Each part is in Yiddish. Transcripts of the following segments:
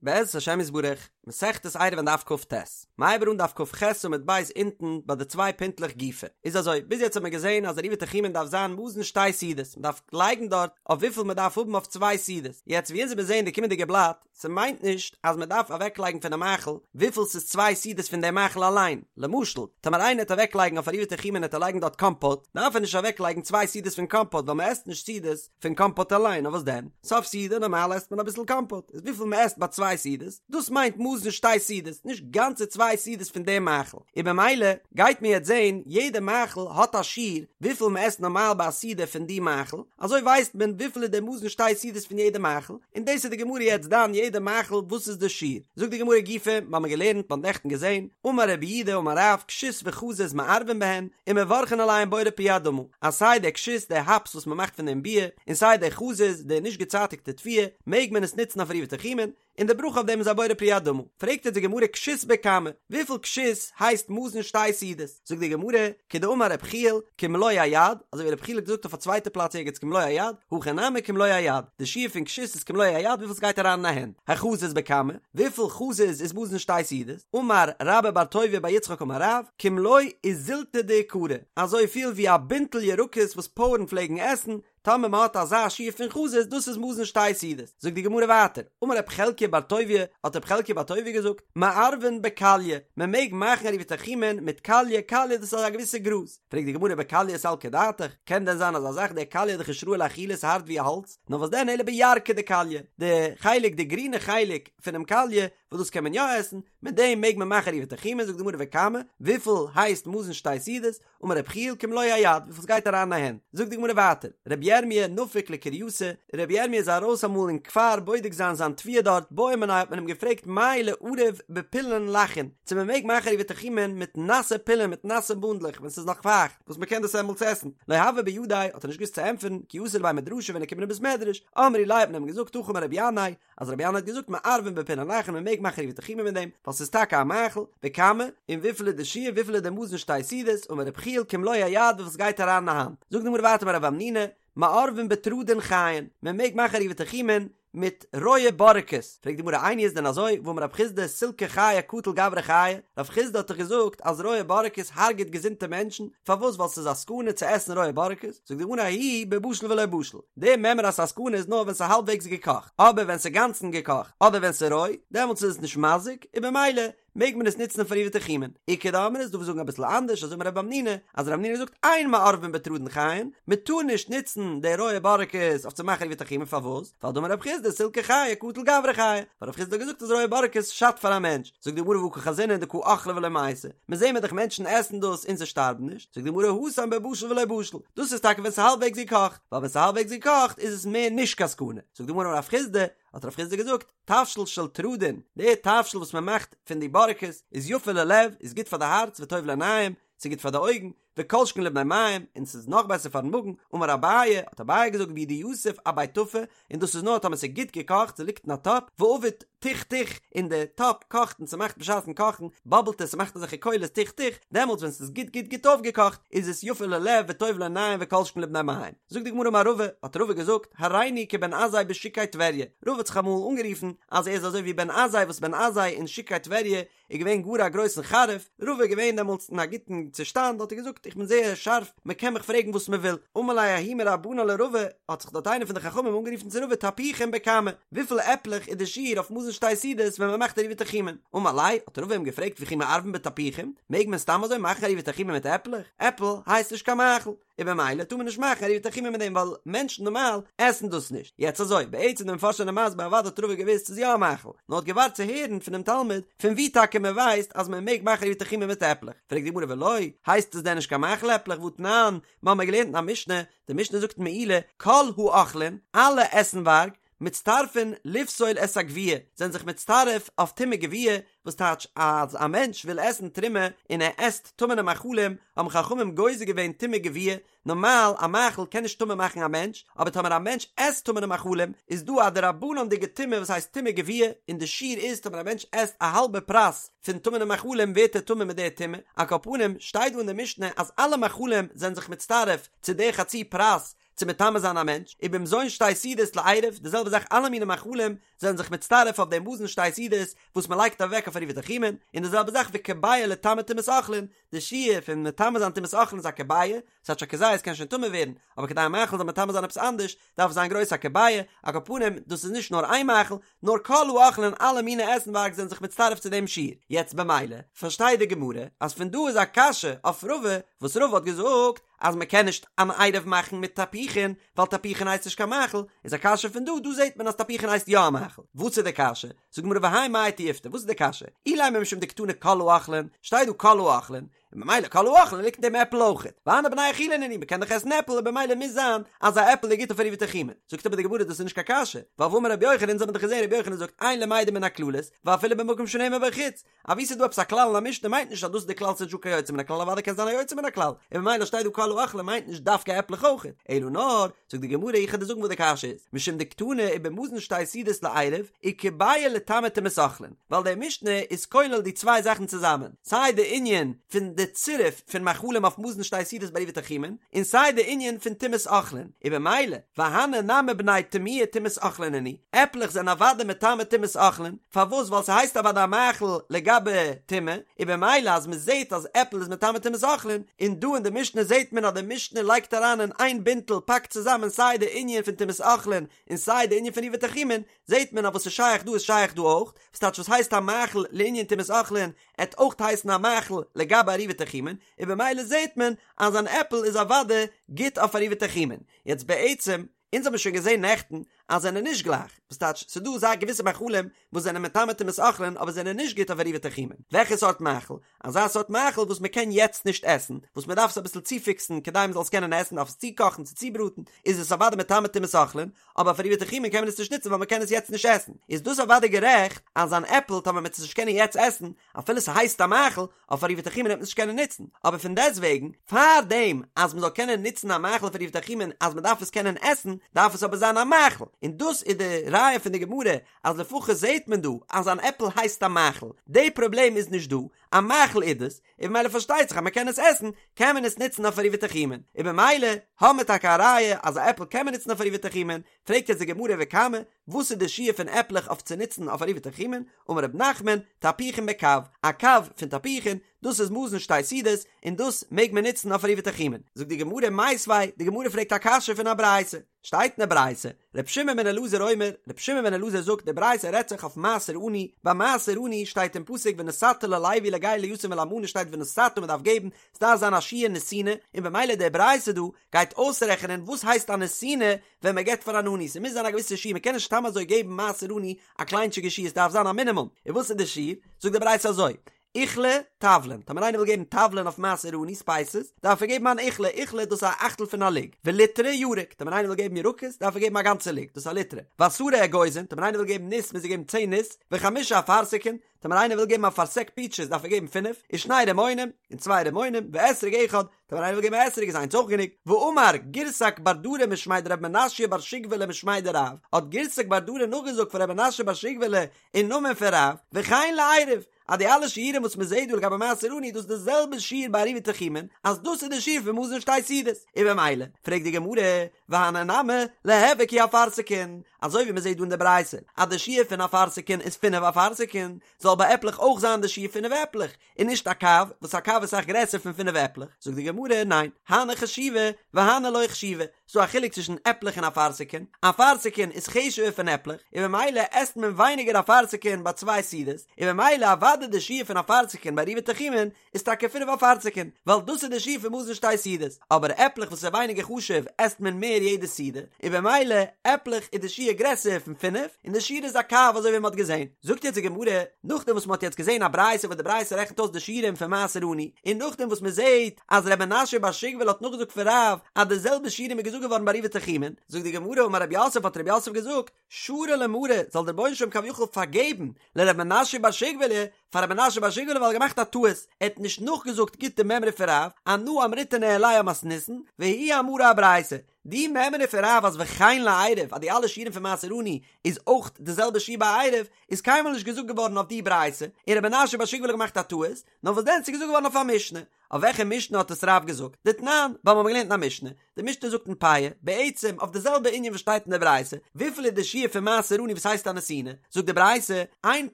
בעזרת השם יתברך, מסכת עירובין דף כ"ט, מ'הייבט אן דף כ"ח עמוד ב' אונטן ביי די צוויי פינטלעך גופא. איז אזוי, ביז יעצט האט מען געזען אז עירובי תחומין דארף זיין מזון שתי סעודות, מ'דארף לייגן דארט אויף וויפיל מ'דארף האבן אויף צוויי סעודות. יעצט ווי אונז וועלן זען די קומענדיגע בלאט, ס'מיינט נישט אז מ'דארף אוועקלייגן פונעם מאכל וויפיל ס'איז צוויי סעודות פון דעם מאכל אליין. למשל, טאמער איינער העט אוועקלייגן אויף עירובי תחומין העט ער לייגן דארט קאמפאט, דארף ער נישט אוועקלייגן צוויי סעודות פון קאמפאט ווייל מ'עסט נישט סעודות פון קאמפאט אליין, נאר וואס דען? סוף סעודה נארמאל עסט מען אביסל קאמפאט, איז וויפיל מען עסט ביי צוויי סעודות, דאס מיינט מזון שתי סעודות, נישט גאנצע צוויי סעודות פון דעם מאכל, און במילא גייט מען יעצט זען יעדע מאכל האט א שיעור וויפיל מען עסט נארמאל ביי א סעודה פון די מאכל, אזוי ווייסט מען וויפיל איז דער מזון שתי סעודות פון יעדע מאכל, און דאס איז די גמרא יעצט דן יעדע מאכל וואס איז די שיעור, זאגט די גמרא גופא, מיר האבן געלערנט, מ'האט נעכטן געזען, אמר רב יהודה אמר רב, כשות וחזיז מערבין בהן, ומברכין עליהן בורא פרי האדמה, אז סיי דער כשות, דער האפס וואס מען מאכט פון דעם ביר, און סיי דער חזיז, די נישט געצייטיגטע תבואה, מעג מען עס נוצן אויף עירובי תחומין, און די ברכה אויף דעם איז א בורא פרי האדמה. פרעגט יעצט די גמרא כשות בכמה, וויפיל כשות הייסט מזון שתי סעודות? זאגט די גמרא, כדאמר רב יחיאל, כמלוא היד, אזוי ווי רב יחיאל האט געזאגט אויף א צווייטע פלאץ ערגעץ כמלוא היד, הכא נמי כמלוא היד, די שיעור פון כשות איז כמלוא היד וויפיל ס'גייט אריין אין א הענט, החזיז בכמה, וויפיל חזיז איז מזון שתי סעודות? אמר רבה בר טוביה בר יצחק אמר רב, כמלוא איזילתא דאיכרי, אזוי פיל ווי א בינטל ירקות וואס פויערן פלעגן עסן, טאמער מען האט אזא שיעור פון חזיז דאס איז מזון שתי סעודות. זאגט די גמרא ווייטער, אמר רב חלקיה בר טוביה, האט רב חלקיה בר טוביה געזאגט, מערבין בקליא, מען מעג מאכן עירובי תחומין מיט קליא, קליא דאס איז א געוויסע גראז, פרעגט די גמרא בקליא סלקא דעתך, קען דען זיין אזא זאך, דער קליא איז דאך נישט ראוי לאכילה ס'הארט ווי א האלץ, נאר וואס דען אלא בירקא דקליא, די חלק די גרינע חלק פונעם קליא וואס דאס קען מען יא עסן, מיט דעם מעג מען מאכן עירובי תחומין, זאגט די גמרא וכמה, וויפיל הייסט מזון שתי סעודות, אמר רב יחיאל כמלוא היד, וויפיל ס'גייט אריין אין א הענט, זאגט די גמרא ווייטער, רבי ירמי' נפק לקרייתא, רבי ירמי' איז ארויס אמאל אין כפר בודק זיין זיין תבואה דארט, בעו מיניה האט מען אים געפרעגט מהו לערב בפולין לחין, צו מען מעג מאכן עירובי תחומין מיט נאסע פולין מיט נאסע בונדלעך ווען ס'איז נאך פייכט, וואס מען קען דאס אמאל עסן, לא הוה בידיה, האט ער נישט געוואוסט צו ענטפערן, כי אתא לבי מדרשא ווען ער קומט אין בית מדרש, אמרו ליה האט מען אים געזאגט הכי אמר רבי ינאי, אז רבי ינאי האט געזאגט מערבין בפולין לחין מען מעג מאכן עירובי תחומין מיט דעם, ווייל ס'איז טאקע א מאכל, וכמה, און וויפיל איז די שיעור וויפיל איז די מזון שתי סעודות, אמר רבי יחיאל כמלוא היד וויפיל ס'גייט אריין אין א האנט, זאגט די גמרא ווייטער אמר רב המנונא, מערבין בתרדין חיין, מען מעג מאכן עירובי תחומין מיט רויע בארעקעס, פרעגט די גמרא איני איז דען אזוי, והאמר רב חסדא סילקא חייא קטיל גברא חייא, רב חסדא האט דאך געזאגט אז רויע בארעקעס הרג'עט געזונטע מענטשן, פארוואס ווייל ס'איז א סכנה צו עסן רויע בארעקעס, זאגט די גמרא ההוא בבשיל ולא בשיל, די מימרא אז ס'איז א סכנה איז נאר ווען ס'איז האלבוועגס געקאכט, אבער ווען ס'איז גאנצן געקאכט אדער ווען ס'איז רוי, דעמאלטס איז עס נישט מזיק, און במילא מעג מען עס נוצן פאר עירובי תחומין. איכא דאמרי איז דא וואס זאגן אביסל אנדערש, אזוי אמר רב המנונא, אז רב המנונא זאגט אין מערבין בתרדין חיין, מען טאר נישט נוצן די רויע בארעקעס אויף צו מאכן עירובי תחומין, פארוואס? ווייל דאמר רב חסדא סילקא חייא קטיל גברא חייא, ווייל רב חסדא האט געזאגט אז רויע בארעקעס שאדט פאר א מענטש, זאגט די גמרא והא קא חזינן דקא אכלי ולא מייתי, מען זעהן מיר דאך מענטשן עסן דאס און זיי שטארבן נישט, זאגט די גמרא התם בבשיל ולא בשיל, דאס איז טאקע ווען ס'איז האלבוועגס געקאכט, ווייל ווען ס'איז האלבוועגס געקאכט איז עס מער נישט קיין סכנה, זאגט די גמרא אמר רב חסדא, האט רב חסדא געזאגט, תבשיל של תרדין, די תבשיל וואס מען מאכט פון די בארעקעס איז יפה ללב, איז גוט פאר די הארץ וטוב לעיניים, ס'איז גוט פאר די אויגן, וכל שכן לבני מעיים, און ס'איז נאך בעסער פארן מאגן, אמר אביי, האט אביי געזאגט והוא דיתיב אבי טפי, און דאס איז נאר טאמער ס'איז גוט געקאכט, ס'ליגט אין א טאפ, ועביד תוך תוך, און די טאפ קאכט און ס'מאכט בשעת'ן קאכן, באבלט עס, ס'מאכט אזעלכע קולות תוך תוך, דעמאלטס ווען ס'איז גוט גוט גוט אויפגעקאכט, איז עס יפה ללב וטוב לעיניים וכל שכן לבני מעיים. זאגט די גמרא אמר רבא, האט רבא געזאגט, הריני כבן עזאי בשוקי טבריה, רבא האט זיך אמאל אנגערופן אז ער איז אזוי ווי בן עזאי וואס בן עזאי אין שוקי טבריה איז געווען גאר א גרויסן חריף, רבא איז געווען דעמאלטס אין א גוטן צושטאנד האט ער געזאגט איך בין זייער שארף מען קען מיך פרעגן וואס מען וויל, אמר ליה ההוא מרבנן לרבא, האט זיך דארט איינער פון די חכמים אנגערופן צו רבא תפוחים בכמה, וויפיל עפלעך איז די שיעור אויף מזון שתי סעודות ווען מען מאכט עירובי תחומין, אמר ליה, האט רבא אים געפרעגט וכי מערבין בתפוחים, מעג מען סתם אזוי מאכן עירובי תחומין מיט עפלעך, עפל הייסט נישט קיין מאכל. און במילא טאר מען נישט מאכן עירובי תחומין מיט דעם ווייל מענטשן נארמאל עסן דאס נישט. יעצט אזוי, בעצם די מפרשים זענען מסביר אוודאי האט רבא געוואוסט ס'איז יא א מאכל, נאר האט געווארט צו הערן פונעם תלמיד פון ווי טאקע מען ווייסט אז מען מעג מאכן עירובי תחומין מיט עפלעך. פרעגט די גמרא ולא, הייסט עס דען נישט קיין מאכל עפלעך והתנן, מיר האבן געלערנט אין א משנה, די משנה זאגט מעילה, כל האוכלין, אלע עסנווארג, מצטרפין לפסול את הגוויה, זענען זיך מצטרף אויף טומאת גוויה, וואס טייטש אז א מענטש וויל עסן תרומה און ער עסט טמא'נע מאכלים, האבן חכמים גוזר געווען טומאת גוויה, נארמאל א מאכל קען נישט טמא מאכן א מענטש, אבער טאמער א מענטש עסט טמא'נע מאכלים איז דא א דרבנן'דיגע טומאה וואס הייסט טומאה גבוהה, און די שיעור איז טאמער א מענטש עסט א האלבע פרס פון טמא'נע מאכלים ווערט ער טמא מיט די טומאה, על כל פנים שטייט דא אין די משנה אז אלע מאכלים זענען זיך מצטרף צו די חצי פרס צו מטמא זיין א מענטש, ובמזון שתי סעודות לעירוב, די זעלבע זאך אלע מיני מאכלים זענען זיך מצטרף אויף דעם מזון שתי סעודות וואס מען לייגט אוועק אויף עירובי תחומין, און די זעלבע זאך וכביעה לטמא טומאת אוכלין, די שיעור פון מטמא זיין טומאת אוכלין איז א כביעה, ס'טייטש א כזית קען שוין טמא ווערן, אבער כדי א מאכל זאל מטמא זיין עפעס אנדערש, דארף עס זיין גרויס א כביעה, על כל פנים, דאס איז נישט נאר איין מאכל, נאר כל האוכלין אלע מיני עסנווארג זענען זיך מצטרף צו דעם שיעור. יעצט במילא, פארשטייט די גמרא, אז פון דא איז א קשיא אויף רבא, וואס רבא האט געזאגט, אז מען קען נישט אן עירוב מאכן מיט תפוחין, ווייל תפוחין הייסט נישט קיין מאכל, איז א קשיא פון דא, דא זעט מען אז תפוחין הייסט יא א מאכל. וואס איז די קשיא? זאגט די גמרא והאי מאי תיובתא, וואס איז די קשיא? אילימא משום דקתני כל האוכלין, שטייט דא כל האוכלין, און במילא כל האוכלין ליגט אין דעם עפל אויכעט, והני בני אכילה נינהו, מ'קען דאך עסן עפל און במילא מוז זיין אז א עפל איז גוט אויף עירובי תחומין. זאגט אבער די גמרא דאס איז נישט קיין קשיא, ווייל והאמר רבי יוחנן, אונז האבן דאך געזען רבי יוחנן זאגט אין למדין מן הכללות, ואפילו במקום שנאמר בו חוץ, אבי ס'איז דא עפעס א כלל אין א משנה מיינט נישט אז דאס איז די כלל ס'איז נישטא קיין יוצא מן הכלל אוודאי קען זיין א יוצא מן הכלל, און במילא שטייט דא כל האוכלין מיינט נישט דווקא עפלעך אויכעט, אלא נאר, זאגט די גמרא איך וועל דיר זאגן וואס די קשיא איז, משום דקתני ובמזון שתי סעודות לעירוב, וכביעה לטמא טומאת אוכלין, ווייל די משנה איז כולל די צוויי זאכן צוזאמען, סיי די ענין פון די צירוף פון מאכלים אויף מזון שתי סעודות ביי עירובי תחומין, און סיי די ענין פון טומאת אוכלין, און במילא, והני נמי בני טמויי טומאת אוכלין נינהו, עפלעך זענען אוודאי מטמא טומאת אוכלין, פארוואס ווייל ס'הייסט אוודאי א מאכל לגבי טומאה, און במילא אז מ'זעט אז עפל איז מטמא טומאת אוכלין, און דא אין די משנה זעט מען אז די משנה לייגט אריין אין איין בינטל פאקט צוזאמען סיי די ענין פון טומאת אוכלין און סיי די ענין פון עירובי תחומין, זעט מען אז וואס איז שייך דא איז שייך דא אויך, וואס טייטש וואס הייסט א מאכל לענין טומאת אוכלין, עט אויך הייסן א מאכל לגבי עירובי תחומין, און במילא זעט מען אז אן עפל איז אוודאי גוט אויף עירובי תחומין. יעצט בעצם, אונז האבן שוין געזען נעכטן אז זענען נישט גלייך, וואס טייטש ס'דא זייער געוויסע מאכלים וואס זענען מטמא טומאת אוכלין אבער זענען נישט גוט אויף עירובי תחומין, וועלכע סארט מאכל? אזא סארט מאכל וואס מ'קען יעצט נישט עסן, וואס מ'דארף עס אביסל צופיקסן כדי מ'זאל עס קענען עסן, דארף עס צוקאכן צו צובראטן, איז עס אוודאי מטמא טומאת אוכלין, אבער אויף עירובי תחומין קען מען עס נישט נוצן ווייל מ'קען עס יעצט נישט עסן, איז דאס אוודאי גערעכט אז אן עפל טאמער מ'עט עס נישט קענען יעצט עסן, אפילו ס'הייסט א מאכל, אויף עירובי תחומין וועט מען עס נישט קענען נוצן, אבער פון דעסטוועגן, פאר דעם אז מ'זאל קענען נוצן א מאכל אויף עירובי תחומין אז מ'דארף עס קענען עסן, דארף עס אבער זיין א מאכל, און דאס איז די ראיה פון די גמרא אז לפחות זעט מען דא אז אן עפל הייסט א מאכל, די פראבלעם איז נישט דא, א מאכל איז דאס, און במילא פארשטייט זיך אז מ'קען עס עסן, קען מען עס נוצן אויף עירובי תחומין, און במילא האבן מיר טאקע א ראיה אז א עפל קען מען נוצן אויף עירובי תחומין, פרעגט יעצט די גמרא וכמה, וואס איז די שיעור פון עפלעך אויף צו נוצן אויף עירובי תחומין, אמר רב נחמן, תפוחין בקב, א קב פון תפוחין, דאס איז מזון שתי סעודות, און דאס מעג מען נוצן אויף עירובי תחומין. זאגט די גמרא מיתיבי, די גמרא פרעגט א קשיא פון א ברייתא, שטייט אין די ברייתא, ר' שמעון בן אלעזר אומר, ר' שמעון בן אלעזר זאגט, די ברייתא רעדט זיך אויף מעשר עני, ביי מעשר עני שטייט אין פסוק ונתת ללוי לגר ליתום ולאלמנה שטייט ונתת מען דארף געבן, ס'דארף זיין א שיעור נתינה, און במילא די ברייתא דא גייט אויסרעכענען וואס הייסט א נתינה ווען מען געבט פאר אן עני, ס'מוז זיין א געוויסע שיעור, מען קען נישט סתם אזוי געבן מעשר עני א קליינטשיגע שיעור, ס'דארף זיין א מינימום, און וואס איז די שיעור? זאגט די ברייתא אזוי, עיכלא תבלין, טאמער איינער וויל געבן תבלין אויף מעשר עני ספייסעס, דארף ער געבן אן עיכלא, עיכלא דאס איז א אכטל פון א לוג, וליטרא ירק, טאמער איינער וויל געבן ירקות, דארף ער געבן א גאנצע לוג, דאס איז א ליטרא, ועשרה אגוזין, טאמער איינער וויל געבן ניס מוז ער געבן צען ניס, וחמשה אפרסקין, טאמער איינער וויל געבן א פארסעק פיטשעס דארף ער געבן פינף, ושני רימונים, און צוויי רימונים, ואתרוג אחד, טאמער איינער וויל געבן א אתרוג איז איינס אויך גענוג, ואמר גירסק בר דרא משמיה דרב מנשיא בר שגבלא משמיה דרב, האט גירסק בר דרא נאכגעזאגט פון רב מנשיא בר שגבלא אין נאמען פון רב, וכן לעירוב, אז די אלע שיעורים וואס מען זעט דא לגבי מעשר עני דאס איז די זעלבע שיעור ביי עירובי תחומין, אז דאס איז די שיעור פון מזון שתי סעודות, און במילא, פרעגט די גמרא, והני נמי, ליהוו כי אפרסקין, אזוי ווי מען זעט דא אין די ברייתא אז די שיעור פון אפרסקין איז פינף אפרסקין, זאל ביי עפלעך אויך זיין די שיעור פינף עפלעך, און נישט א קב, וואס א קב איז אסאך גרעסער פון פינף עפלעך, זאגט די גמרא, ניין, הני חשיבי והני לא חשיבי, ס'דא א חילוק צווישן עפלעך און אפרסקין, אפרסקין איז חשוב'ער פון עפלעך, און במילא עסט מען ווייניגער אפרסקין ביי צוויי סעודות, און במילא אוודאי די שיעור פון אפרסקין ביי עירובי תחומין איז טאקע פינף אפרסקין, ווייל דאס איז די שיעור פון מזון שתי סעודות, אבער עפלעך וואס איז ווייניגער חשוב עסט מען מער יעדע סעודה, און במילא עפלעך איז די שיעור גרעסער פון פינף, און די שיעור איז א קב אזוי ווי מען האט געזען. זאגט יעצט די גמרא, נאכדעם וואס מען האט יעצט געזען א ברייתא וואס די ברייתא רעכנט אויס די שיעורים פון מעשר עני, און נאכדעם וואס מען זעט אז ר' מנשיא בר שגבלא האט נאכגעזאגט פון רב אז די זעלבע שיעורים איז געזאגט געווארן ביי עירובי תחומין, זאגט די גמרא אמר רב יוסף האט רב יוסף געזאגט, שרי ליה מרי, זאל דער רבונו של עולם כביכול פארגעבן לר' מנשיא בר שגבלא, פאר ר' מנשיא בר שגובלי ווייל ער האט געמאכט א טעות, ער האט נישט נאכגעזאגט גוט די מימרא פון רב, אנא אמריתה ניהליה אמתניתין, והוא אמרה אברייתא, די מימרא פון רב אז וכן לעירוב אז די אלע שיעורים פון מעשר עני איז אויך די זעלבע שיעור ביי עירוב, איז קיינמאל נישט געזאגט געווארן אויף די ברייתא, און ר' מנשיא בר שגובלי האט געמאכט א טעות, נאר וואס דען ס'איז געזאגט געווארן אויף א משנה. אויף וועלכע משנה האט עס רב געזאגט? דתנן, ווייל מ'האט געלערנט אין א משנה. די משנה זאגט אין פאה, בעצם אויף די זעלבע ענין וואס שטייט אין די ברייתא, וויפיל איז די שיעור פון מעשר עני וואס הייסט א נתינה? זאגט די ברייתא, אין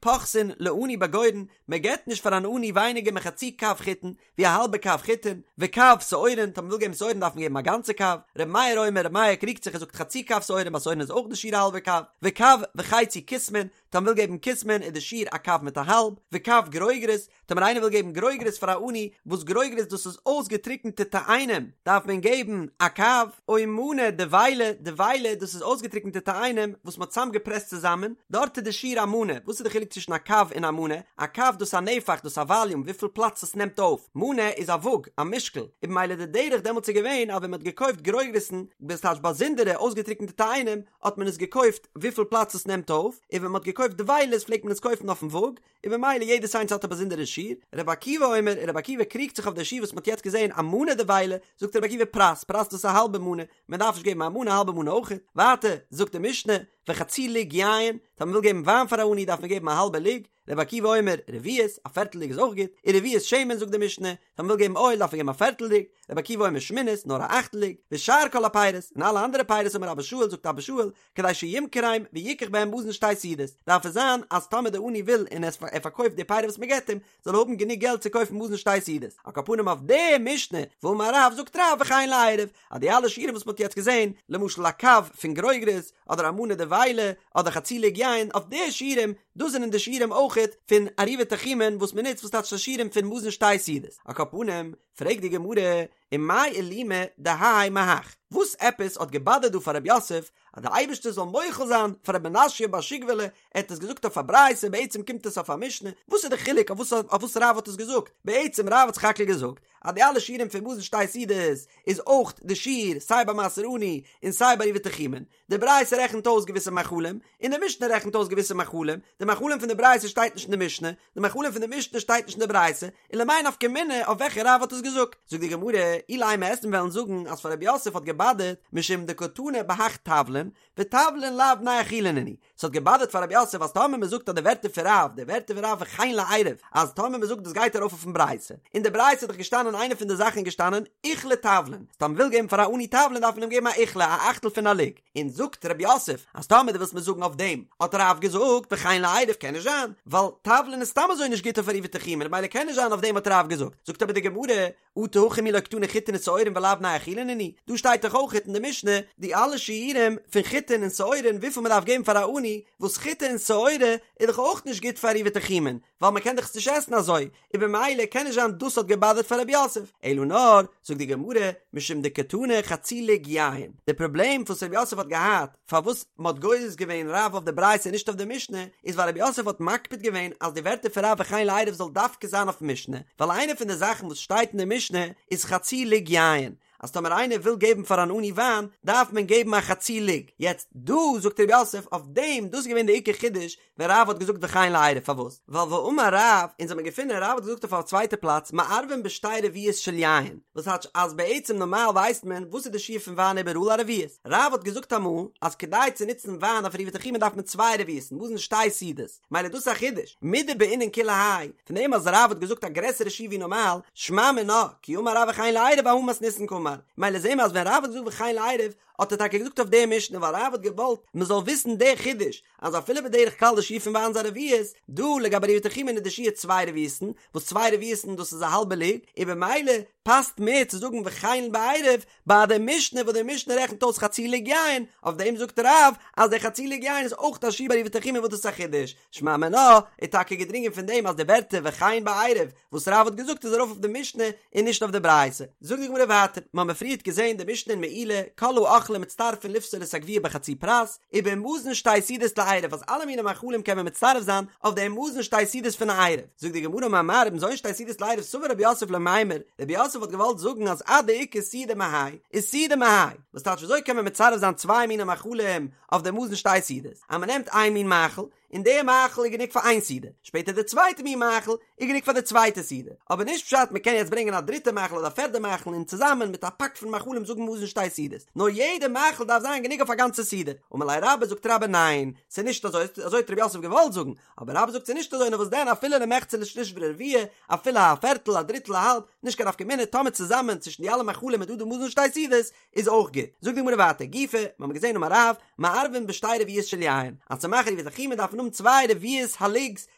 פוחתין לעני בגורן, מ'געבט נישט פאר אן עני ווייניגער מחצי קב חיטין, ווי א האלבע קב חיטין, וקב שעורין, טאמער מ'וויל געבן שעורין דארף מען געבן א גאנצע קב, ר' מאיר אומר, ר' מאיר קריגט זיך ער זאגט חצי קב שעורין, ביי שעורין איז אויך די שיעור א האלבע קב, וקב וחצי כוסמין, טאמער מ'וויל געבן כוסמין איז די שיעור א קב מיט א האלב, וקב גרוגרות, טאמער איינער וויל געבן גרוגרות פאר א עני, וואס גרוגרות דאס איז אויסגעטריקענטע תאנים, דארף מען געבן א קב, או מנה דבילה, דבילה דאס איז אויסגעטריקענטע תאנים וואס מ'האט צוזאמגעפרעסט צוזאמען, דארט איז די שיעור א מנה, וואס איז די חילוק צווישן א קב און א מנה? א קב דאס איז א נפח, דאס איז א וואליום, וויפיל פלאץ עס נעמט אויף, מנה איז א וואג, א משקל, און במילא די דרך דעמאלטס איז געווען אז ווען מ'האט געקויפט גרוגרות'ן, דאס טייטש באזונדערע אויסגעטריקענטע תאנים, האט מען עס געקויפט וויפיל פלאץ עס נעמט אויף, און ווען מ'האט געקויפט דבילות פלעגט מען עס קויפן אויפן וואג, און במילא יעדעס איינס האט א באזונדערע שיעור, רבי עקיבא אומר, און רבי עקיבא קריגט זיך אויף די שיעור וואס מ'האט יעצט געזען א מנה דבילה, זאגט רבי עקיבא פרס, פרס דאס איז א האלבע מנה, מען דארף נישט געבן א מנה, א האלבע מנה אויך, ווייטער זאגט די משנה, וחצי לוג יין, טאמער מ'וויל געבן וויין פאר א עני דארף מען געבן א האלבע לוג, רבי עקיבא אומר, רביעית, א פערטל לוג איז אויך גוט, ורביעית שמן זאגט די משנה, טאמער מ'וויל געבן אויל דארף מען געבן א פערטל לוג, רבי עקיבא אומר שמינית, נאר א אכטל לוג, ושאר כל הפירות, און אלע אנדערע פירות אמר אבא שאול זאגט אבא שאול, כדי שימכרם ויקח בהם מזון שתי סעודות, דארף עס זיין אז טאמער די עני וויל און ער פארקויפט די פירות וואס מען געבט אים, זאל ער האבן גענוג געלט צו קויפן מזון שתי סעודות. על כל פנים אויף די משנה, ואמר רב זאגט רב וכן לעירוב, אז די אלע שיעורים וואס מען האט יעצט געזען, למשל א קב פון גרוגרות, אדער א מנה דבילה, אדער חצי לוג יין, אויף די שיעורים, דאס זענען די שיעורים אויכעט פון עירובי תחומין וואס מען נוצט וואס טייטש די שיעורים פון מזון שתי סעודות. על כל פנים, פרעגט די גמרא, ומאי אילימא דהאי מהך, וואס עפעס האט געבאדערט דא פאר רב יוסף אז די אייבערשטער זאל מוחל זיין פאר ר' מנשיא בר שגובלי, ער האט עס געזאגט אויף א ברייתא בעצם קומט עס אויף א משנה, וואס איז די חילוק אויף וואס אויף וואס רב האט עס געזאגט, בעצם רב האט סך הכל געזאגט אז די אלע שיעורים פון מזון שתי סעודות איז אויך די שיעור סיי ביי מעשר עני און סיי ביי עירובי תחומין, די ברייתא רעכנט אויס געוויסע מאכלים, און די משנה רעכנט אויס געוויסע מאכלים, די מאכלים פון די ברייתא שטייט נישט אין די משנה, די מאכלים פון די משנה שטייט נישט אין די ברייתא, און למאי נפקא מינה אויף וועלכע רב האט עס געזאגט? זאגט די גמרא, אילימא וועסט וועלן זאגן אז פאר רב יוסף האט געבאדערט משום דקתני בהך תבלין, ותבלין לאו בני אכילה נינהו, ס'האט געבאדערט פאר רב יוסף אז טאמער מ'זאגט אז די ווערטער פון רב, די ווערטער פון רב וכן לעירוב, אז טאמער מ'זאגט דאס גייט ארויף אויפן ברייתא, אין די ברייתא איז דאך געשטאנען איינע פון די זאכן איז געשטאנען עיכלא תבלין, אז טאמער מ'וויל געבן פאר א עני תבלין דארף מען אים געבן א עיכלא, א אכטל פון א לוג, און זאגט רב יוסף אז טאמער דו ווילסט מיר זאגן אויף דעם האט רב געזאגט וכן לעירוב קען נישט זיין, ווייל תבלין איז סתם אזוי נישט גוט אויף עירובי תחומין ממילא קען נישט זיין אויף דעם האט רב געזאגט, זאגט אבער די גמרא, אטו הכא מי לא קתני חיטין ושעורין ולאו בני אכילה נינהו, דא שטייט דאך אויך אין די משנה די אלע שיעורים פון חיטין און שעורין וויפיל מען דארף געבן פאר א עני, וואס חיטה און שעורה איז דאך אויך נישט גוט פאר עירובי תחומין, ווייל מען קען דאך עס נישט עסן אזוי, און במילא קען נישט זיין דאס האט געבאדערט פאר רב יוסף, אלא נאר, זאגט די גמרא, משום דקתני חצי לוג יין, די פראבלעם וואס רב יוסף האט געהאט, פארוואס מען האט גורס געווען רב אויף די ברייתא און נישט אויף די משנה, איז ווייל רב יוסף האט מקפיד געווען אז די ווערטער פון רב וכן לעירוב זאל דווקא זיין אויפן משנה, ווייל איינע פון די זאכן וואס שטייט אין די משנה איז חצי לוג יין, אז טאמער איינער וויל געבן פאר אן עני וויין דארף מען געבן א חצי לוג, יעצט דא זאגט רב יוסף אויף דעם, דאס איז געווען די עיקר חידוש ווען רב האט געזאגט וכן לעירוב, פארוואס? ווייל ואמר רב, אונז האמיר געפונען רב האט געזאגט אויף א צווייטע פלאץ מערבין בשתי רביעיות של יין, וואס טייטש אז בעצם נארמאל ווייסט מען וואס איז די שיעור פון וויין איבעראל א רביעית, רב האט געזאגט אמאל אז כדי צו נוצן וויין אויף עירובי תחומין דארף מען צוויי רביעית'ן, מזון שתי סעודות, מילא דאס איז א חידוש, מדבעינן כולי האי, פון דעם אז רב האט געזאגט א גרעסערע שיעור ווי נארמאל, שמע מינה, כי אמר רב וכן לעירוב אהא מתניתין קאמר, מילא זעהן מיר אז ווען רב האט געזאגט וכן לעירוב האט ער טאקע געזאגט אויף די משנה ווייל רב האט געוואלט מען זאל וויסן די חידוש אז אפילו בדרך כלל די שיעור פון וויין איז א רביעית, דא לגבי עירובי תחומין איז די שיעור צוויי רביעית'ן, וואס צוויי רביעית'ן דאס איז א האלבע לוג, און במילא פאסט מער צו זאגן וכן בעירוב ביי די משנה וואס די משנה רעכנט אויס חצי לוג יין, אויף דעם זאגט רב אז די חצי לוג יין איז אויך א שיעור ביי עירובי תחומין וואס דאס איז א חידוש, שמע מינה איז טאקע געדרינגען פון דעם אז די ווערטער וכן בעירוב וואס רב האט געזאגט איז ארויף אויף די משנה און נישט אויף די ברייתא. זאגט די גמרא ווייטער, מ'האמיר פריערט געזען די משנה אין מעילה, כל האוכלים מצטרפין לפסול את הגווייה בחצי פרס, ובמזון שתי סעודות לעירוב אז אלע מיני מאכלים קען מען מצטרף זיין אויף דעם מזון שתי סעודות פון א עירוב. זאגט די גמרא אמר מר ובמזון שתי סעודות לעירוב סבר רב יוסף למימר, רב יוסף האט געוואלט זאגן אז עד דאיכא סעודה מהאי איז סעודה מהאי, וואס טייטש וויאזוי קען מען מצרף זיין צוויי מיני מאכלים אויף דעם מזון שתי סעודות, אז מ'נעמט איין מין מאכל. און די מאכל איז גענוג פאר איין סעודה, שפעטער די צווייטע מין מאכל איז גענוג פאר די צווייטע סעודה, אבער נישט פשט מען קען יעצט ברענגען א דריטע מאכל אדער א פערדע מאכל און צוזאמען מיט א פאק פון מאכלים זאגן מזון שתי סעודות, נאר יעדע מאכל דארף זיין גענוג אויף א גאנצע סעודה, אמר ליה רבה זאגט רבה ניין, ס'איז נישט אזוי, אזוי האט רב יוסף געוואלט זאגן, אבער רבה זאגט ס'איז נישט אזוי נאר וואס דען אפילו למחצה לשליש ולרביע, אפילו א פערטל א דריטל א האלב, נישט קיין נפקא מינה טאמער צוזאמען צווישן די אלע מאכלים איז דא די מזון שתי סעודות, איז אויך גוט. זאגט די גמרא ווייטער, גופא, מ'האמיר געזען אמר רב, מערבין בשתי רביעיות של יין, אז צו מאכן עירובי תחומין דארף מען האבן צוויי רביעית הלוג'ס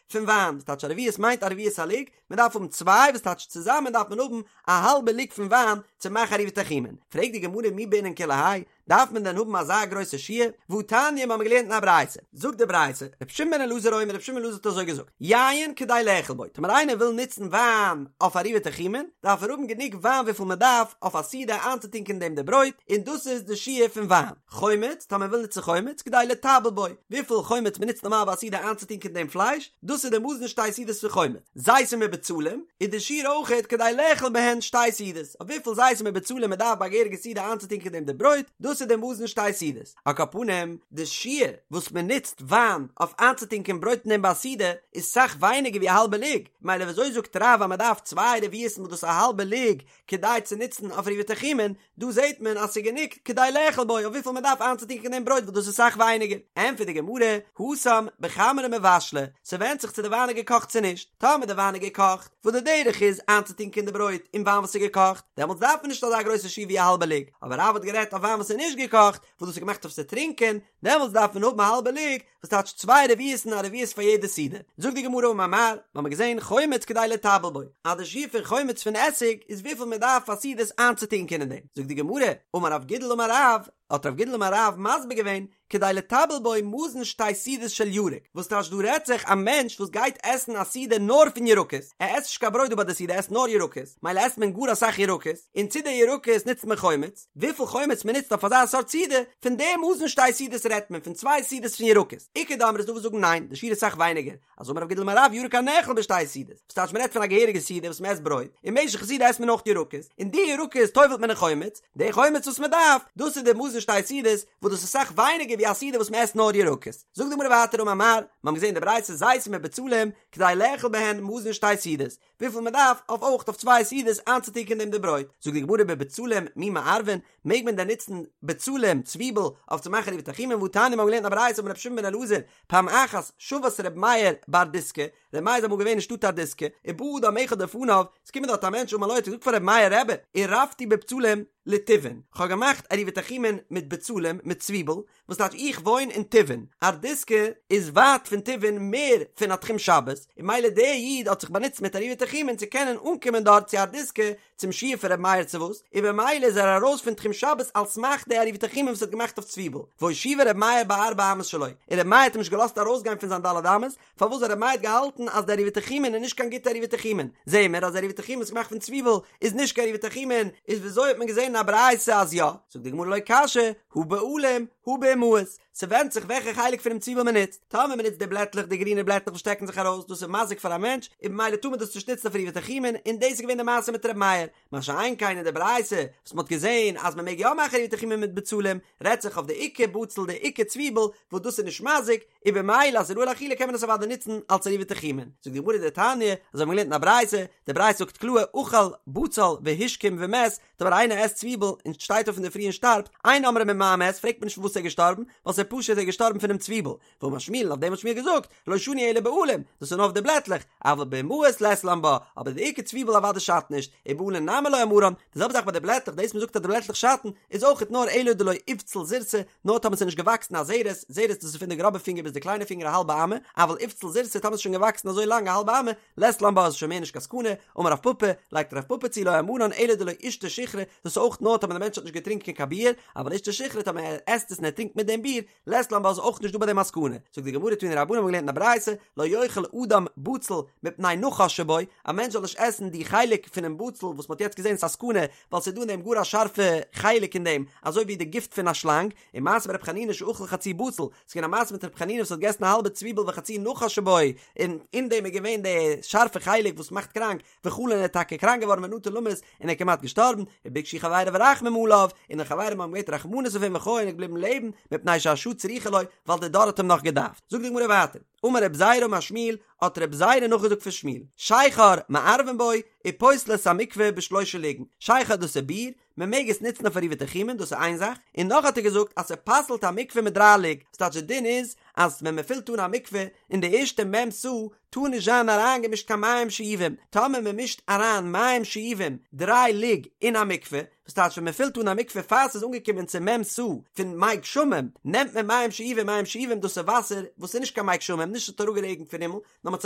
פון וויין, וואס טייטש א רביעית מיינט א רביעית הלוג, מען דארף האבן צוויי וואס טייטש צוזאמען דארף מען האבן א האלבע לוג פון וויין צו מאכן עירובי תחומין. פרעגט די גמרא מי בעינן כולי האי, דארף מען דען האבן אזא גרויסע שיעור? והתניא מ'האמיר געלערנט אין א ברייתא, זאגט די ברייתא, רבי שמעון בן אלעזר אומר רבי שמעון בן אלעזר האט אזוי געזאגט, יין כדי לאכול בו, טאמער איינער וויל נוצן וויין אויף עירובי תחומין, דארף ער האבן גענוג וויין וויפיל מען דארף אויף א סעודה איינצוטונקען דעם די ברויט, און דאס איז די שיעור פון וויין. חומץ, טאמער מען וויל נוצן חומץ, כדי לטבל בו, וויפיל חומץ מען נוצט נארמאל ביי א סעודה איינצוטונקען דעם פלייש, דאס איז די מזון שתי סעודות פון חומץ. זיתים ובצלים, איז די שיעור אויכעט כדי לאכול בהן שתי סעודות, אויף וויפיל זיתים ובצלים מען דארף ביי א געהעריגע סעודה איינצוטונקען דעם די ברויט, דאס איז די מזון שתי סעודות. על כל פנים, די שיעור וואס מען נוצט וויין אויף איינצוטונקען ברויט אין דעם ביי א סעודה, איז סאך ווייניגער ווי א האלבע לוג, מילא ווי אזוי זאגט רב אז מען דארף צוויי רביעית'ן וואס דאס איז א האלבע לוג כדי צו נוצן אויף עירובי תחומין, דא זעט מען אז ס'איז גענוג כדי לאכול בו אויף וויפיל מען דארף איינצוטונקען דעם ברויט וואס דאס איז סאך ווייניגער. ענטפערט די גמרא, התם בחמרא מבשלא, ס'ווענדט זיך צו די וויין איז געקאכט צו נישט, טאמער די וויין איז געקאכט, וואס די דרך איז איינצוטונקען די ברויט אין וויין וואס איז געקאכט, דעמאלטס דארף מען נישט אזא גרויסע שיעור ווי א האלבע לוג, אבער רב האט גערעדט אויף וויין וואס איז נישט געקאכט, וואס דאס איז געמאכט אויף צו טרינקען, דעמאלטס דארף מען האבן א האלבע לוג, וואס טייטש צוויי רביעית'ן א רביעית פאר יעדע סעודה. זאגט די גמרא אמר מר, מ'האמיר געזען חומץ כדי לטבל בו, אז די שיעור פון חומץ פון עסיג איז וויפיל מען דארף פאר סעודות איינצוטונקען אין דעם. זאגט די גמרא, אמר רב גידל אמר רב, האט רב גידל אמר רב מסביר געווען, כדי לטבל בו מזון שתי סעודות של ירק, וואס טייטש דא רעדט זיך א מענטש וואס גייט עסן א סעודה נאר פון ירקות, ער עסט נישט קיין ברויט דא ביי די סעודה ער עסט נאר ירקות, מילא עסט מען גאר אסאך ירקות, און צו די ירקות נוצט מען חומץ, וויפיל חומץ מען נוצט אויף אזא סארט סעודה, פון די מזון שתי סעודות רעדט מען, פון צוויי סעודות פון ירקות. איכא דאמרי איז דא וואס זאגן ניין, די שיעור איז סאך ווייניגער, אז אמר רב גידל אמר רב ירק הנאכל בשתי סעודות, וואס טייטש מען רעדט פון א געהעריגע סעודה וואס מען עסט ברויט, אין משך סעודה עסט מען אויך ירקות, און די ירקות טובל'ט מען אין חומץ, די חומץ וואס מען דארף, דאס איז די מזון שתי סעודות, וואס דאס איז סאך ווייניגער ווי א סעודה וואס מען עסט נאר ירקות. זאגט די גמרא ווייטער אמר מר, מיר האבן געזען די ברייתא זיתים ובצלים, כדי לאכול בהן מזון שתי סעודות, וויפיל מען דארף אויף אויך אויף צוויי סעודות איינצוטונקען דעם די ברויט, זאגט די גמרא בבצלים מי מערבין, מעג מען דען נוצן בצלים, צוויבל, אויף צו מאכן עירובי תחומין, והתניא מיר האבן געלערנט א ברייתא אמר רבי שמעון בן אלעזר, פעם אחת שבת רבי מאיר בארדיסקא, רבי מאיר איז אמאל געווען אין שטאט ארדיסקא, ובא אדם אחד לפניו, עס קומט דארט א מענטש אמר לו האט ער געזאגט פאר רבי מאיר רבי, עירבתי בבצלים לטיבעין, כ'האב געמאכט עירובי תחומין מיט בצלים, מיט צוויבל, וואס טייטש איך וואוין אין טיבעין? ארדיסקא איז ווייט פון טיבעין מער פון א תחום שבת, און מילא דער איד האט זיך באנוצט מיט עירובי תחומין צו קענען אנקומען דארט צו ארדיסקא צום שיעור פון ר' מאיר צו וואס, און במילא איז ער ארויס פון תחום שבת על סמך די עירובי תחומין וואס ער האט געמאכט אויף צוויבל, והושיבו ר' מאיר בארבע אמות שלו, און ר' מאיר האט אים נישט געלאזט ארויסגיין פון זיין ד' אמות, פארוואס ווייל ר' מאיר האט געהאלטן אז די עירובי תחומין איז נישט קיין גוטע עירובי תחומין, זעהן מיר אז עירובי תחומין וואס איז געמאכט פון צוויבל איז נישט קיין עירובי תחומין, איז וויאזוי האט מען געזעהן אין א ברייתא אז יא? זאגט די גמרא לא קשיא, הא בעלים הא באימהות, ס'ווענדט זיך וועלכע חלק פונעם צוויבל מען נוצט, טאמער מען נוצט די בלעטלעך די גרינע בלעטלעך וואס שטעקן זיך ארויס דאס איז מזיק פאר א מענטש און במילא טאר מען דאס נישט נוצן אויף עירובי תחומין, און דאס איז געווען די מעשה מיט ר' מאיר, מה שאין כן אין די ברייתא וואס מ'האט געזען אז מ'מעג יא מאכן עירובי תחומין מיט בצלים, רעדט זיך אויף די עיקר בצל די עיקר צוויבל וואס דאס איז נישט מזיק, און במילא אז ס'איז ראוי לאכילה קען מען עס אוודאי נוצן אלס עירובי תחומין. זאגט די גמרא דתניא, אזוי האבן מיר געלערנט אין א ברייתא, די ברייתא זאגט קלאר אכל בצל והשכים ומת, טאמער איינער עסט צוויבל און שטייט אויף אינדערפרי און שטארבט, אין אומרים ממה מת, פרעגט מען נישט פון וואס ער איז געשטארבן, ווייל ס'איז פשוט ער איז געשטארבן פונעם צוויבל, ואמר שמואל אויף דעם האט שמואל געזאגט, לא שנו אלא בעלים, דאס איז נאר אויף די בלעטלעך, אבל באימהות לית לן בה, אבער די עיקר צוויבל אוודאי שאדט נישט, ובעלים נמי לא אמרן, די זעלבע זאך ביי די בלעטלעך, דאס מ'זאגט אז די בלעטלעך שאטן, איז אויכעט נאר אלא דלא איבציל זורתא, נאר טאמער ס'איז נישט געוואקסן א זרת, זרת דאס איז פון די גראבע פינגער ביז די קליינע פינגער א האלבע אמה, אבל איבציל זורתא טאמער ס'איז שוין געוואקסן אזוי לאנג א האלבע אמה, לית לן בה איז שוין מער נישט קיין סכנה, אמר רב פפא, לייגט רב פפא צו לא אמרן אלא דלא אישתי שיכרא, דאס איז אויך נאר טאמער די מענטש האט נישט געטרינקען קיין ביר, אבל אישתי שיכרא טאמער ער עסט עס און ער טרינקט מיט דעם ביר, לית לן בה איז אויך נישט דא ביי דעם א סכנה, זאגט די גמרא תנו רבנן האבן געלערנט אין א ברייתא, לא יאכל אדם בצל מפני נחש שבו, א מענטש זאל נישט עסן די חלק פונעם בצל וואס מ'האט יעצט געזען ס'איז א סכנה, ווייל ס'איז דא אין דעם גאר א שארפע חלק אין דעם, אזוי ווי די גיפט פון א שלאנג, ומעשה ברב חנינא שאכל חצי בצל, ס'איז געווען א מעשה מיט רב חנינא וואס האט געגעסן א האלבע צוויבל וחצי נחש שבו, און אין דעם איז געווען די שארפע חלק וואס מאכט קראנק, וחלה און ער איז טאקע קראנק געווארן ונטה למות און ער איז כמעט געשטארבן, וביקשו חבריו רחמים עליו, און די חברים האבן געבעטן רחמנות אויף אים וחי און ער איז געבליבן לעבן, מפני שהשעה. שהשעה צריכה לו, ווייל די דור האט אים נאך געדארפט. זאגט די גמרא ווייטער, אמר רב זירא אמר שמואל, האט רב זירא נאכגעזאגט פון שמואל, שכר מערבין בו, ופוסל את המקווה בשלושה לוגין, שכר דאס איז ביר, מען מעג עס נוצן אויף עירובי תחומין, דאס איז איין זאך, און נאך האט ער געזאגט אז ס'פסל'ט א מקווה מיט דריי לוג, ס'טייטש די דין איז אז ווען מען פילט אן א מקווה אין די ערשטע מ' סאה טאר נישט זיין אריינגעמישט קיין מים שאובים, טאמער מען מישט אריין מים שאובים דריי לוג אין א מקווה, וואס טייטש ווען מען פילט אן א מקווה פאר ס'איז אנגעקומען צו מ' סאה פון מי גשמים, נעמט מען מים שאובים, מים שאובים דאס איז וואסער וואס איז נישט קיין מי גשמים, נישט ס'האט אראפגערעגנט פון הימל, נאר מ'האט עס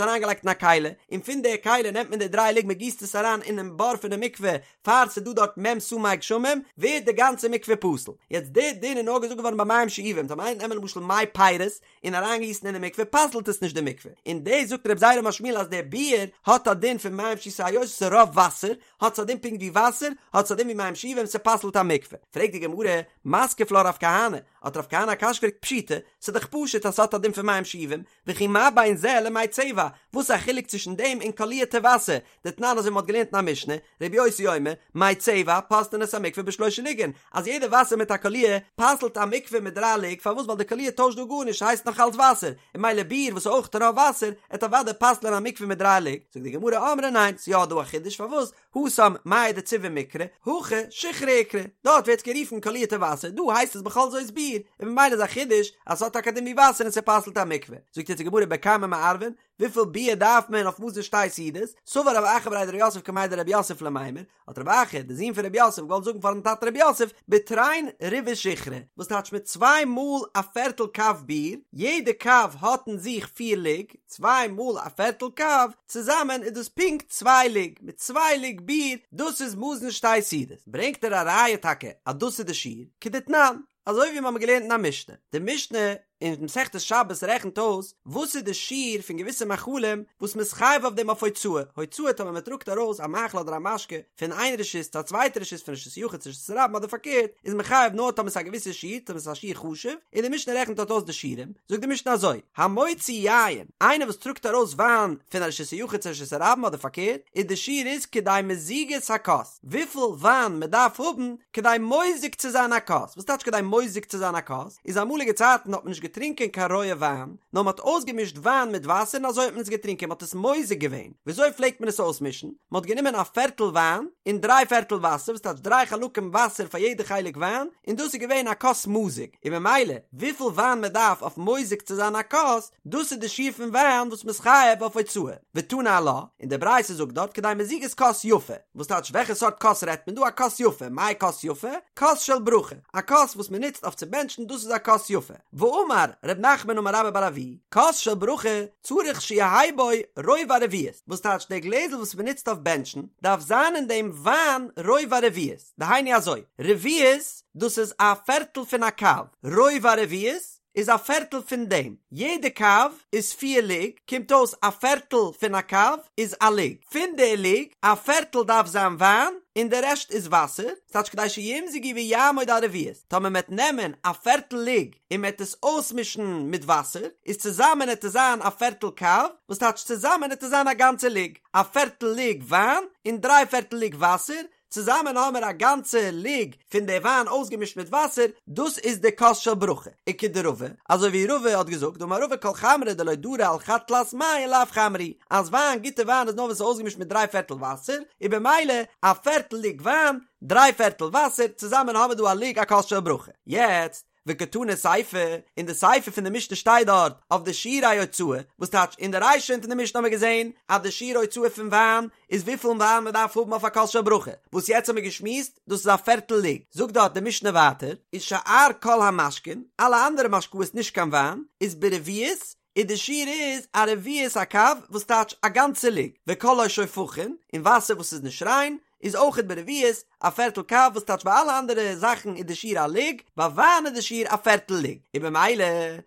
אריינגעלייגט אין א כלי, און פון די כלי נעמט מען די דריי לוג מ'גיסט עס אריין אינעם בור פון די מקווה פאר ס'איז דא דארט מ' סאה מי גשמים, ווערט די גאנצע מקווה פסול. יעצט די דין איז נאר געזאגט געווארן ביי מים שאובים, טאמער איינער נעמען למשל מי פירות און אריינגיסן אין די מקווה פסל'ט עס נישט די מקווה, און דאס זאגט רב זירא אמר שמואל אז די ביר האט א דין פון מים ש ס'היות ס'איז רוב וואסער, האט עס א דין פונקט ווי וואסער, האט עס א דין ווי מים שאובים ס'פסל'ט א מקווה. פרעגט די גמרא, מתקיף לה רב כהנא, האט רב כהנא א קשיא געפרעגט פשיטא, ס'איז דאך פשוט אז ס'האט א דין פון מים שאובים, וכי מה בין זה למי צבע, וואס איז א חילוק צווישן דעם און קאלירטע וואסער, דתנן אזוי ווי מ'האט געלערנט אין א משנה, רבי יוסי אומר, מי צבע פוסלין את המקווה בשלושה לוגין, אז יעדע וואסער מיט א קאליר פסל'ט א מקווה מיט דריי לוג, פארוואס ווייל די קאליר טוישט דא גארנישט ס'הייסט נאך אלץ וואסער, און ממילא ביר וואס איז אויך רוב וואסער, עט אוודאי פסל'ען א מקווה מיט דריי לוג, זאגט די גמרא אמרי ניין, ס'יא דא א חידוש פארוואס, התם מיא דצבעא מיקרי, הכא שיכרא איקרי, דארט ווערט עס גערופן קאלירטע וואסער, דא הייסט עס בכל זאת ביר, און ממילא איז א חידוש אז ס'האט טאקע א דין ווי וואסער און ס'פסל'ט א מקווה. זאגט יעצט די גמרא בכמה מערבין, וויפיל ביר דארף מען אויף מזון שתי סעודות, סבר רב אחא בריה דרב יוסף קמיה דרב יוסף למימר, האט רב אחא, דער זון פון רב יוסף, געוואלט זאגן פארן טאטן רב יוסף, בתרין רבעי שיכרא, וואס טייטש מיט צוויי מאל א פערטל קב ביר, יעדע קב האט אין זיך פיר לוג, צוויי מאל א פערטל קב, צוזאמען איז דאס פונקט צוויי לוג, מיט צוויי לוג ביר, דאס איז מזון שתי סעודות. ברענגט ער א ראיה טאקע אז דאס איז די שיעור, כדתנן, אזוי ווי מיר האבן געלערנט אין א משנה, די משנה אין מסכת שבת רעכנט אויס וואס איז די שיעור פון געוויסע מאכלים וואס מ'איז חייב אויף דעם אויף הוצאה, הוצאה טאמער מ'טראגט ארויס א מאכל אדער א משקה פון איין רשות צו א צווייטע רשות פון רשות יחיד צו רשות הרבים אדער פארקערט איז מען חייב נאר טאמער ס'איז א געוויסע שיעור טאמער ס'איז א שיעור חשוב, און די משנה רעכנט דארט אויס די שיעורים, זאגט די משנה אזוי, המוציא יין, איינער וואס טראגט ארויס וויין פון א רשות היחיד צו א רשות הרבים אדער פארקערט, איז די שיעור איז כדי מזיגת הכוס, וויפיל וויין מען דארף האבן כדי מוזג צו זיין א כוס, וואס טייטש כדי מוזג צו זיין א כוס? איז אמאליגע צייטן האט מען נישט געטרינקען קיין רויע וויין, נאר מען האט אויסגעמישט וויין מיט וואסער און אזוי האט מען עס געטרינקען, מען האט עס מוזג געווען. וויאזוי פלעגט מען עס אויסמישן? מען האט גענומען א פערטל וויין און דריי פערטל וואסער, וואס טייטש דריי חלקים וואסער פאר יעדע חלק וויין, און דאס איז געווען א כוס מזוג, און ממילא וויפיל וויין מען דארף אויף מוזג צו זיין א כוס, דאס איז די שיעור פון וויין וואס מען איז חייב אויף הוצאה. ותני עלה, און די ברייתא זאגט דארט כדי מזיגת כוס יפה, וואס טייטש וועלכע סארט כוס רעדט מען דא, א כוס יפה, מאי כוס יפה? כוס של ברכה, א כוס וואס מען נוצט אויף צו בענטשן דאס איז א כוס יפה. ואמר ר' נחמן אמר רבה בר אבוה, כוס של ברכה צריך שיהא בו רובע רביעית, וואס טייטש דער גלעזל וואס מען נוצט אויף בענטשן דארף זיין אין דעם וויין רובע רביעית, דהיינו אזוי, רביעית דאס איז א פערטל פון א קב, רובע רביעית איז א פערטל פון דעם, יעדע קב איז פיר לוג, קומט אויס א פערטל פון א קב איז א לוג, פון די לוג א פערטל דארף זיין וויין און די רעשט איז וואסער, ס'טייטש כדי שימזגו ויעמוד על רביעית, טאמער מ'עט נעמען א פערטל לוג און מ'עט עס אויסמישן מיט וואסער, איז צוזאמען עט עס זיין א פערטל קב, וואס טייטש צוזאמען עט עס זיין א גאנצע לוג, א פערטל לוג וויין און דריי פערטל לוג וואסער, צוזאמען האמער א גאנצע לוג פון די וויין אויסגעמישט מיט וואסער, דאס איז די כוס של ברכה, וכדרבא, אזוי ווי רבא האט געזאגט, דאמר רבא כל חמרא דלא דרי על חד תלת מיא לאו חמרא הוא, אז וויין, גוטע וויין איז נאר ווען ס'איז אויסגעמישט מיט דריי פערטל וואסער, און במילא א פערטל לוג וויין, דריי פערטל וואסער, צוזאמען האמער דא א לוג א כוס של ברכה. יעצט, וקתני סיפא, אין די סיפא פון די משנה שטייט דארט אויף די שיעורי הוצאה, וואס טייטש אין די רישא פון די משנה האבן מיר געזען אז די שיעור הוצאה פון וויין איז וויפיל וויין מען דארף האבן אויף א כוס של ברכה, וואס יעצט האבן מיר געשמועסט דאס איז א פערטל לוג, זאגט דארט די משנה ווייטער, איז שאר כל המשקין, אלע אנדערע משקאות נישט קיין וויין, איז ברביעית, און די שיעור איז א רביעית הקב וואס טייטש א גאנצע לוג, וכל השופכין, און וואסער וואס איז נישט ריין, איז אויכעט ברביעית, א פערטל קב וואס טייטש ביי אלע אנדערע זאכן איז די שיעור א לוג, ביי וויין איז די שיעור א פערטל לוג, און במילא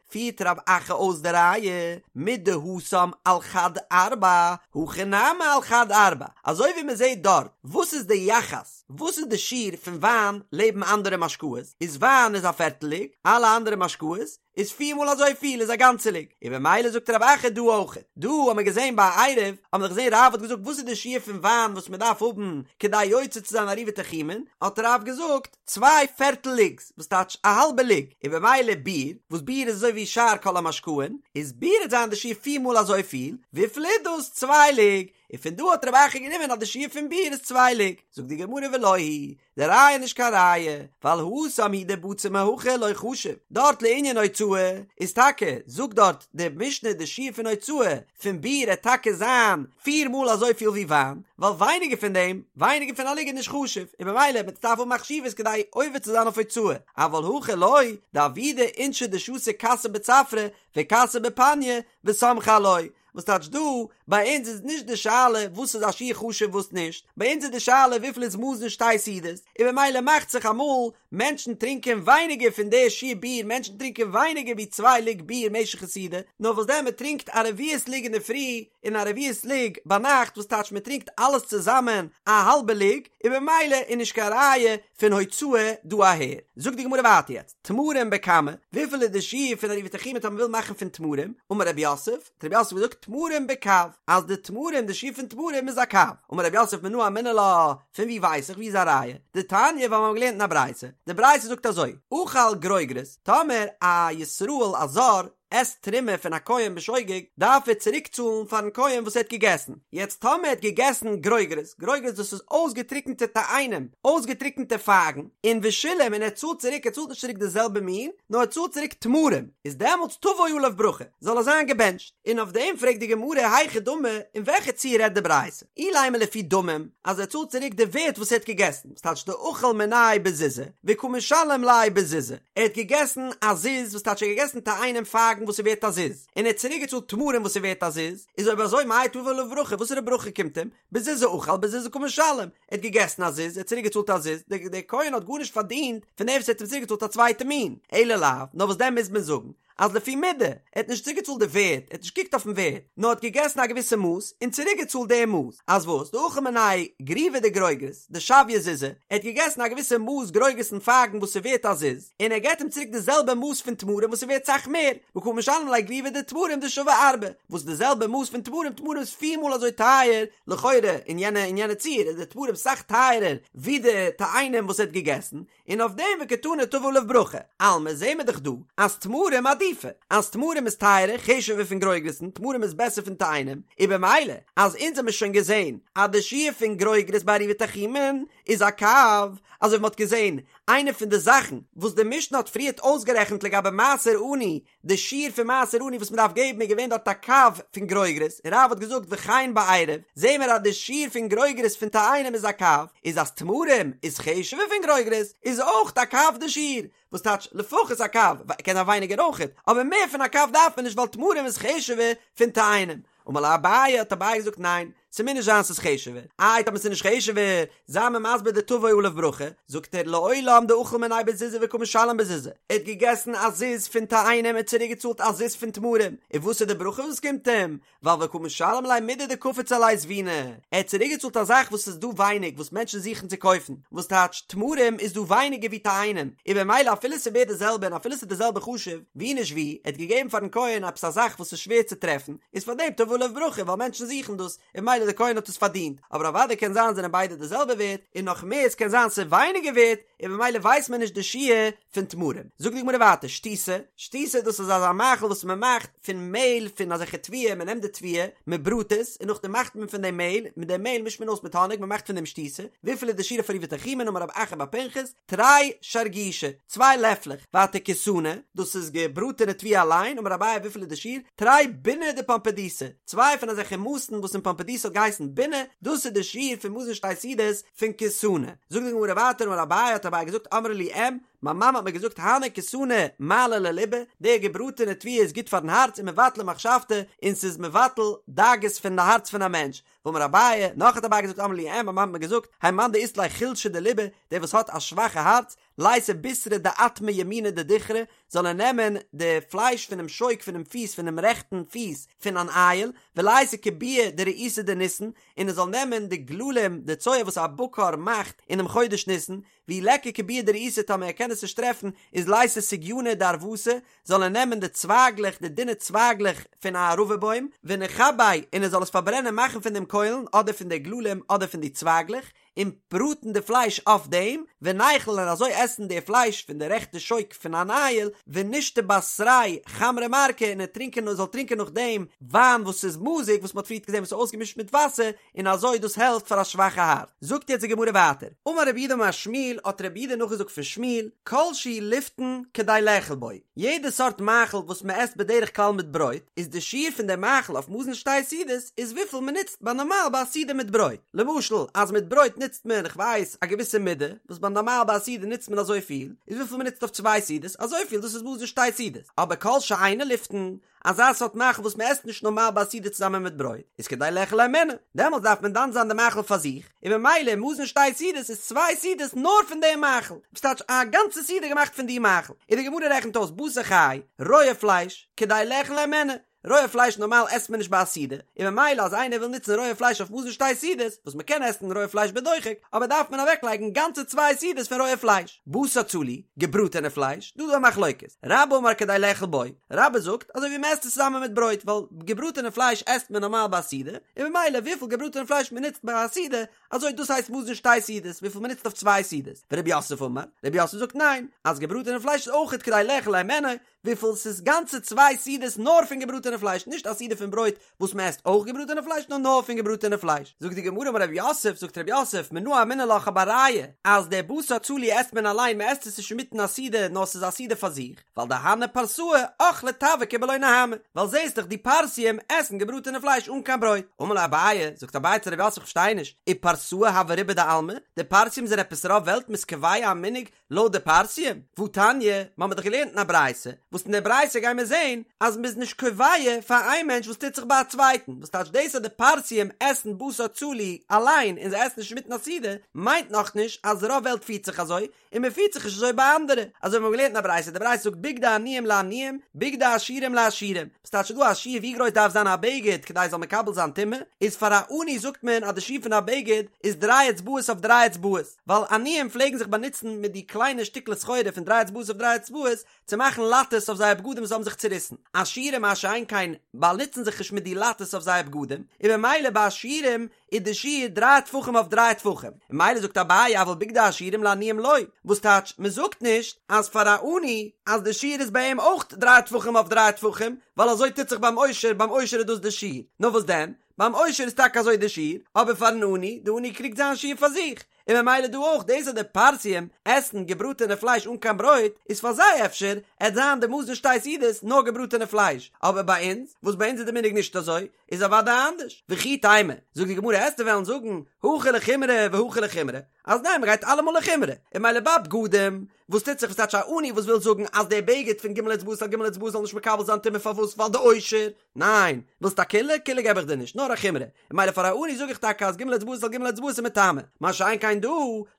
פירט רב אחא אויס די ראיה מדהתם על חד ארבע, הכא נמי על חד ארבע, אזוי ווי מען זעט דארט, וואס איז די יחס? וואס איז די שיעור פון וויין לעבן אנדערע משקאות, איז וויין איז א פערטל לוג, אלע אנדערע משקאות איז פיר מאל אזוי פיל איז א גאנצע לוג, און במילא זאגט רב אחא דא אויך, דא האט מען געזען ביי עירוב, האט מען דאך געזען רב האט געזאגט וואס איז די שיעור פון וויין וואס מען דארף האבן כדי יוצא צו זיין עירובי תחומין, האט רב געזאגט צוויי פערטל לוגס וואס טייטש א האלבע לוג, און במילא ביר, וואס ביר איז אזוי ווי שאר כל המשקאין, איז ביר וועט זיין די שיעור פיר מאל אזוי פיל, וויפיל איז דאס צוויי לוג, און פון דא האט רב אחא גענומען אז די שיעור פון ביר איז צוויי לוג, זאגט די גמרא ולא היא די ראיה איז נישט קיין ראיה, ווייל התם הוא דבצר מהכא לא חשיב, דארט לענין הוצאה איז טאקע, זאגט דארט די משנה די שיעור פון הוצאה פון ביר עט טאקע זיין פיר מאל אזויפיל ווי וויין, ווייל ווייניגער פון דעם, ווייניגער פון א לוג איז נישט חשוב, און במילא מען דארף האבן א חשיבות כדי עובר צו זיין אויף הוצאה, אבל הכא לא, דעבידי אינשי דשתו כסא בצפרא וכסא בפניא וסמכי עילויה, וואס טייטש דא? ביי אונז איז נישט די שאלה וואס איז א שיעור חשוב וואס נישט, ביי אונז איז די שאלה וויפיל איז מזון שתי סעודות, און במילא מאכט זיך אמאל מענטשן טרינקען ווייניגער פון די שיעור ביר, מענטשן טרינקען ווייניגער ווי צוויי לוג ביר משך א סעודה, נאר וואס דען מען טרינקט א רביעית לוג אינדערפרי און א רביעית לוג ביינאכט וואס טייטש מען טרינקט אלעס צוזאמען א האלבע לוג, און במילא איז נישט קיין ראיה פון הוצאה דא אהער. זאגט די גמרא ווייטער יעצט, תמרים בכמה, וויפיל איז די שיעור פון עירובי תחומין טאמער מ'וויל מאכן פון תמרים, אמר רב יוסף, האט רב יוסף געזאגט תמרים בקב, אז די תמרים די שיעור פון תמרים איז א קב, אמר רב יוסף מנא אמינא לה, פון ווי ווייס איך ווי איז א ראיה, דתניא ווייל מיר האבן געלערנט אין א ברייתא, די ברייתא זאגט אזוי, אכל גרוגרות, טאמער א ישראל א זר עסט תרומה פון א כהן בשוגג, דארף ער צוריק צאלן פארן כהן וואס ער האט געגעסן. יעצט טאמער ער האט געגעסן גרוגרות, גרוגרות דאס איז אויסגעטריקענטע תאנים, אויסגעטריקענטע פייגן, און ושילם און ער צאלט צוריק, ער צאלט נישט צוריק די זעלבע מין, נאר ער צאלט צוריק תמרים, איז דעמאלטס תבוא עליו ברכה, זאל ער זיין געבענטשט. און אויף דעם פרעגט די גמרא היכי דמי, אין וועלכע ציור רעדט די ברייתא? אילימא לפי דמים, אז ער צאלט צוריק די ווערט וואס ער האט געגעסן, וואס טייטש דאכל מיניה בזוזא, וקא משלם ליה בזוזא, ער האט געגעסן א זוז, וואס טייטש ער האט געגעסן תאנים פייגן וואס איז ווערט א זוז, און ער האט צוריק געצאלט תמרים וואס איז ווערט א זוז, איז אויב אזוי מאי תבוא עליו ברכה, וואסערע ברכה קומט אים? בזוזא אכל בזוזא קא משלם, ער האט געגעסן א זוז, ער האט צוריק געצאלט א זוז, דער כהן האט גארנישט פארדינט פון דעם וואס ער האט אים צוריק געצאלט א צווייטע מין, אלא לאו, נאר וואס דען מוז מען זאגן, אז לפי מידה, ער האט נישט צוריקגעצאלט די ווערט, ער האט נישט געקוקט אויפן ווערט, נאר האט געגעסן א געוויסע מאס און צוריקגעצאלט די מאס, אז וואס, דאכל מיניה גריוא דגרוגרות, דשויא זוזא, ער האט געגעסן א געוויסע מאס גרוגרת'ן פייגן וואס איז ווערט א זוז, און ער געט אים צוריק די זעלבע מאס פון תמרים וואס איז ווערט סאך מער, וקא משלם ליה גריוא דתמרים דשויא ארבעה, וואס די זעלבע מאס פון תמרים, תמרים איז פיר מאל אזוי טייער, לכאורה אין יענע אין יענע ציור איז די תמרים סאך טייערער ווי די תאנים וואס ער האט געגעסן, און אויף דעם וקתני תבוא עליו ברכה, אלמא זעהן מיר דאך דא אז תמרים עדיפי, אז תמרים איז טייערער, חשוב'ער פון גרוגרת'ן, תמרים איז בעסער פון תאנים, און במילא אז אונז האמיר שוין געזעהן אז די שיעור פון גרוגרות ביי עירובי תחומין איז א קב, אזוי ווי מ'האט געזעהן איינע פון די זאכן וואס די משנה האט פריערט אויסגערעכנט לגבי מעשר עני די שיעור פון מעשר עני וואס מען דארף געבן איז געווען דארט א קב פון גרוגרות, און רב האט געזאגט וכן בעירוב, זעהן מיר אז די שיעור פון גרוגרות פון תאנים איז א קב, איז אז תמרים איז חשוב'ער פון גרוגרות, איז אויך א קב די שיעור, וואס טייטש לפחות א קב, קען זיין ווייניגער אויכעט, אבער מער פון א קב דארף מען נישט ווייל תמרים איז חשוב'ער פון תאנים. אמר ליה אביי, האט אביי געזאגט ניין, ס'מוז נישט זיין ס'איז חשוב'ער, איי טאמער ס'איז נישט חשוב'ער, זיי מיר מסביר די תבוא עליו ברכה, זאגט ער לעולם דאכל מיניה בזוזא וקא משלם בזוזא, ער האט געגעסן א זוז פון תאנים און צוריק געצאלט א זוז פון תמרים, און וואס איז די ברכה וואס קומט אים? ווייל וקא משלם ליה מידי דקפיץ עליה זבינא, ער האט צוריק געצאלט א זאך וואס איז דא ווייניג וואס מענטשן זוכן צו קויפן, וואס טייטש תמרים איז דא ווייניגער ווי תאנים, און במילא אפילו ס'איז ווערט די זעלבע און אפילו ס'איז די זעלבע חשוב, ווי נישט ווי, ער האט געגעבן פארן כהן עפעס א זאך וואס איז שווער צו טרעפן, איז פאר דעם תבוא עליו ברכה ווייל מענטשן זוכן דאס, און במילא דער כהן האט עס פארדינט, אבער אוודאי קען זיין זענען ביידע די זעלבע ווערט, און נאך מער עס קען זיין ס'איז ווייניגער ווערט, און במילא ווייסט מען נישט די שיעור פון תמרים. זאגט די גמרא ווייטער, שתיתא, שתיתא דאס איז אזא מאכל וואס מען מאכט פון מעהל פון אזעלכע תבואה, מען נעמט די תבואה, מען בראט עס, און נאכדעם מאכט מען פון דעם מעהל, מיט דעם מעהל מישט מען אויס מיט האניג, מען מאכט פון דעם שתיתא, וויפיל איז די שיעור אויף עירובי תחומין, אמר רב אחא בר פנחס, תרי שרגישי, צוויי לעפלעך, ווייטער כיסנא, דאס איז געבראטענע תבואה אליין, אמר אביי וויפיל איז די שיעור, תרי ביני דפומבדיתא, צוויי פון אזעלכע מאסן וואס אין פומבדיתא האט געהייסן בינה, דאס איז די שיעור פון מזון שתי סעודות פון כיסנא. זאגט די גמרא ווייטער אמר אביי האט אביי געזאגט אמרה לי אם, מיין מאמע האט מיר געזאגט הני כיסני מעלי לליבא, די געבראטענע תבואה איז גוט פארן הארץ ומבטלי מחשבתא, און ס'איז מבטל דאגות פון די הארץ פון א מענטש. ואמר אביי, נאך האט אביי געזאגט אמרה לי אם, מיין מאמע האט מיר געזאגט, האי מאן דאית ליה חולשא דליבא, דער וואס האט א שוואכע הארץ, לייתי בישרא דאטמא ימינא דדוכרא, זאל ער נעמען די פלייש פונעם שוק פונעם פיס פונעם רעכטן פיס פון אן איל, ולייתי כוביי דרעיתא דניסן, און ער זאל נעמען די גללים, די צואה וואס א בקר מאכט אינעם חודש ניסן, ואי ליכא כוביי דרעיתא טאמער ער קען עס נישט טרעפן, איז לייתי סוגייני דערבתא, זאל ער נעמען די צווייגלעך, די דינע צווייגלעך פון א ערבה בוים, ונכביה, און ער זאל עס פארברענען מאכן פון דעם קוילן, אדער פון די גללים, אדער פון די צווייגלעך, און בראטן די פלייש אויף דעם, וניכול און אזוי עסן די פלייש פון די רעכטע שוק פון אן איל, ונשתי בתריה חמרא מרקא און ער טרינקען און זאל טרינקען נאכדעם וויין וואס איז מזוג וואס מען האט פריערט געזען וואס איז אויסגעמישט מיט וואסער, און אזוי דאס העלפט פאר א שוואכע הארץ. זאגט יעצט די גמרא ווייטער, אמר רב יהודה אמר שמואל, האט רב יהודה נאכגעזאגט פון שמואל, כל שהוא לפתן כדי לאכול בו, יעדע סארט מאכל וואס מען עסט בדרך כלל מיט ברויט, איז די שיעור פון די מאכל אויף מזון שתי סעודות איז וויפיל מען נוצט ביי נארמאל ביי א סעודה מיט ברויט. למשל אז מיט ברויט נוצט מען כ'ווייס א געוויסע מידה, וואס ביי נארמאל ביי א סעודה נוצט מען אזויפיל, איז וויפיל מען נוצט אויף צוויי סעודות אזויפיל, דאס איז מזון שתי סעודות. אבער כל שאינו לפתן, אזא סארט מאכל וואס מען עסט נישט נארמאל ביי א סעודה צוזאמען מיט ברויט, איז כדי לאכול הימנו, דעמאלטס דארף מען דן זיין די מאכל פאר זיך, און ממילא מזון שתי סעודות איז צוויי סעודות נאר פון דעם מאכל, וואס טייטש א גאנצע סעודה געמאכט פון די מאכל, און די גמרא רעכנט אויס בשר חי, רויע פלייש, כדי לאכול הימנו, רויע פלייש נארמאל עסט מען נישט ביי א סעודה, און ממילא אז איינער וויל נוצן רויע פלייש אויף מזון שתי סעודות, וואס מען קען עסן רויע פלייש בדוחק, אבער דארף מען אוועקלייגן גאנצע צוויי סעודות פון רויע פלייש. בשר צלי, געבראטענע פלייש, דא איז דא א מחלוקת, רבה אמר כדי לאכול בו, רבה זאגט אזוי ווי מען עסט עס צוזאמען מיט ברויט, ווייל געבראטענע פלייש עסט מען נארמאל ביי א סעודה, און ממילא וויפיל געבראטענע פלייש מען נוצט ביי א סעודה, אזוי דאס הייסט מזון שתי סעודות, וויפיל מען נוצט אויף צוויי סעודות. ורב יוסף אמר, רב יוסף זאגט ניין, אז געבראטענע פלייש איז אויכעט כדי לאכול הימנו, וויפיל ס'איז גאנצע צוויי סעודות נאר פון געבראטענע פלייש, נישט א סעודה פון ברויט וואס מען עסט אויך געבראטענע פלייש נאר נאר פון געבראטענע פלייש. זאגט די גמרא אמר רב יוסף, זאגט רב יוסף, מנא אמינא לה כ'האב א ראיה אז דער בשר צלי עסט מען אליין מען עסט עס נישט אינמיטן א סעודה נאר ס'איז א סעודה פאר זיך, ווייל דהני פרסאי אכלי טבקא בלא נהמא, ווייל זעסט דאך די פרסיים עסן געבראטענע פלייש אן קיין ברויט. אמר ליה אביי, זאגט אביי צו רב יוסף כ'פארשטיי נישט, ופרסאי הוו רובא דעלמא, די פרסיים זענען עפעס רוב וועלט מ'איז קובע א מנהג לויט די פרסיים, והתניא, מ'האמיר דאך געלערנט אין א ברייתא, וואס אין דער ברייתא גייען מיר זעהן אז מ'איז נישט קובע פאר איין מענטש וואס טוט זיך ביי א צווייטן, וואס טייטש דאס אז די פרסיים עסן בשר צלי אליין און זיי עסן נישט אינמיטן א סעודה, מיינט נאכנישט אז רוב וועלט פירט זיך אזוי, און מ'פירט זיך נישט אזוי ביי אנדערע, אזוי ווי מ'האט געלערנט אין א ברייתא, די ברייתא זאגט בגדי עניים לעניים, בגדי עשירים לעשירים, וואס טייטש ס'איז דא א שיעור ווי גרויס דארף זיין א בגד כדי ס'זאל מקבל זיין טומאה, איז פאר א עני זאגט מען אז די שיעור פון א בגד איז דריי אצבעות אויף דריי אצבעות. ווייל עניים פלעגן זיך באנוצן מיט די קליינע שטיקלעך סחורה פון דריי אצבעות אויף דריי אצבעות צו מאכן לאטעס אויף זייער בגדים וואס האבן זיך צוריסן. עשירים מה שאין כן באנוצן זיך נישט מיט די לאטעס אויף זייער בגדים, און ממילא ביי עשירים איז די שיעור דריי טפחים אויף דריי טפחים. און ממילא זאגט אביי אבל בגדי עשירים לעניים לא, וואס טייטש מען זאגט נישט אז פאר א עני אז די שיעור איז ביי אים אויך דריי טפחים אויף דריי טפחים, ווייל אזוי טוט זיך ביים עושר, ביים עושר איז דאס די שיעור. נאר וואס דען? ביים עושר איז טאקע אזוי די שיעור, אבער פארן עני, די עני קריגט זיין שיעור פאר זיך, און ממילא דא אויך, דאס אז די פרסיים עסן געבראטענע פלייש אן קיין ברויט, איז פאר זיי אפשר עט זיין די מזון שתי סעודות נאר געבראטענע פלייש, אבער ביי אונז, וואס ביי אונז איז די מנהג נישט אזוי, איז אוודאי אנדערש. וכי תימא, זאגט די גמרא עסטו וועלן זאגן, הכא לחומרא והכא לחומרא, אז ניין מ'גייט אלעמאל לחומרא, און ממילא ביי בגדים, וואס טוט זיך וואס טייטש א עני וואס וויל זאגן אז דער בגד פון ג' אצבעות על ג' אצבעות זאל נישט מקבל זיין טומאה פארוואס ווייל די עושר, ניין, ווילסט א קולא? קולא געב איך דיר נישט, נאר א חומרא. און ממילא פאר א עני זאג איך טאקע אז ג' אצבעות על ג' אצבעות איז מטמא. מה שאין כן דא,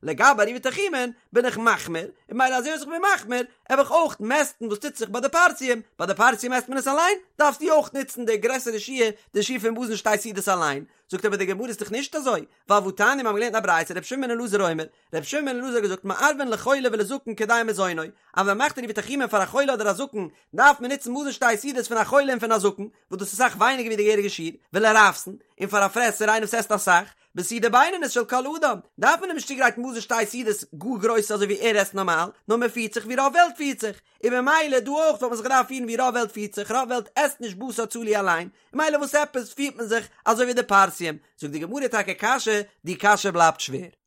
לגבי עירובי תחומין, בין איך מחמיר, און ממילא אזוי ווי איך בין מחמיר, העב איך אויך מעסטן וואס טוט זיך ביי די פרסיים, ביי די פרסיים מעסט מען עס אליין, דארפסטו אויך נוצן די גרעסערע שיעור, די שיעור פון מזון שתי סעודות אליין. זאגט אבער די גמרא איז דאך נישט אזוי, ווייל והתניא מיר האבן געלערנט אין א ברייתא רבי שמעון בן אלעזר אומר, רבי שמעון בן אלעזר האט געזאגט מערבין לחולה ולזקן כדי מזונו, אז ווען מ'מאכט עירובי תחומין פאר א חולה אדער א זקן, דארף מען נוצן מזון שתי סעודות פון א חולה און פון א זקן, וואס דאס איז אסאך ווייניגער ווי די געהעריגע שיעור, ולרעבתן, און פאר א פרעסער איינער וואס עסט אסאך, בסעודה בינונית של כל אדם, דארף מען אים נישט צוגרייטן מזון שתי סעודות גאר גרויס אזוי ווי ער עסט נארמאל, נאר מען פירט זיך ווי רוב וועלט פירט זיך, און ממילא דא אויך וואלט מען זיך געדארפט פירן ווי רוב וועלט פירט זיך, רוב וועלט עסט נישט בשר צלי אליין, ממילא וואס עפעס פירט מען זיך אזוי ווי די פרסיים, זאגט די גמרא טאקע קשיא, די קשיא בלייבט שווער.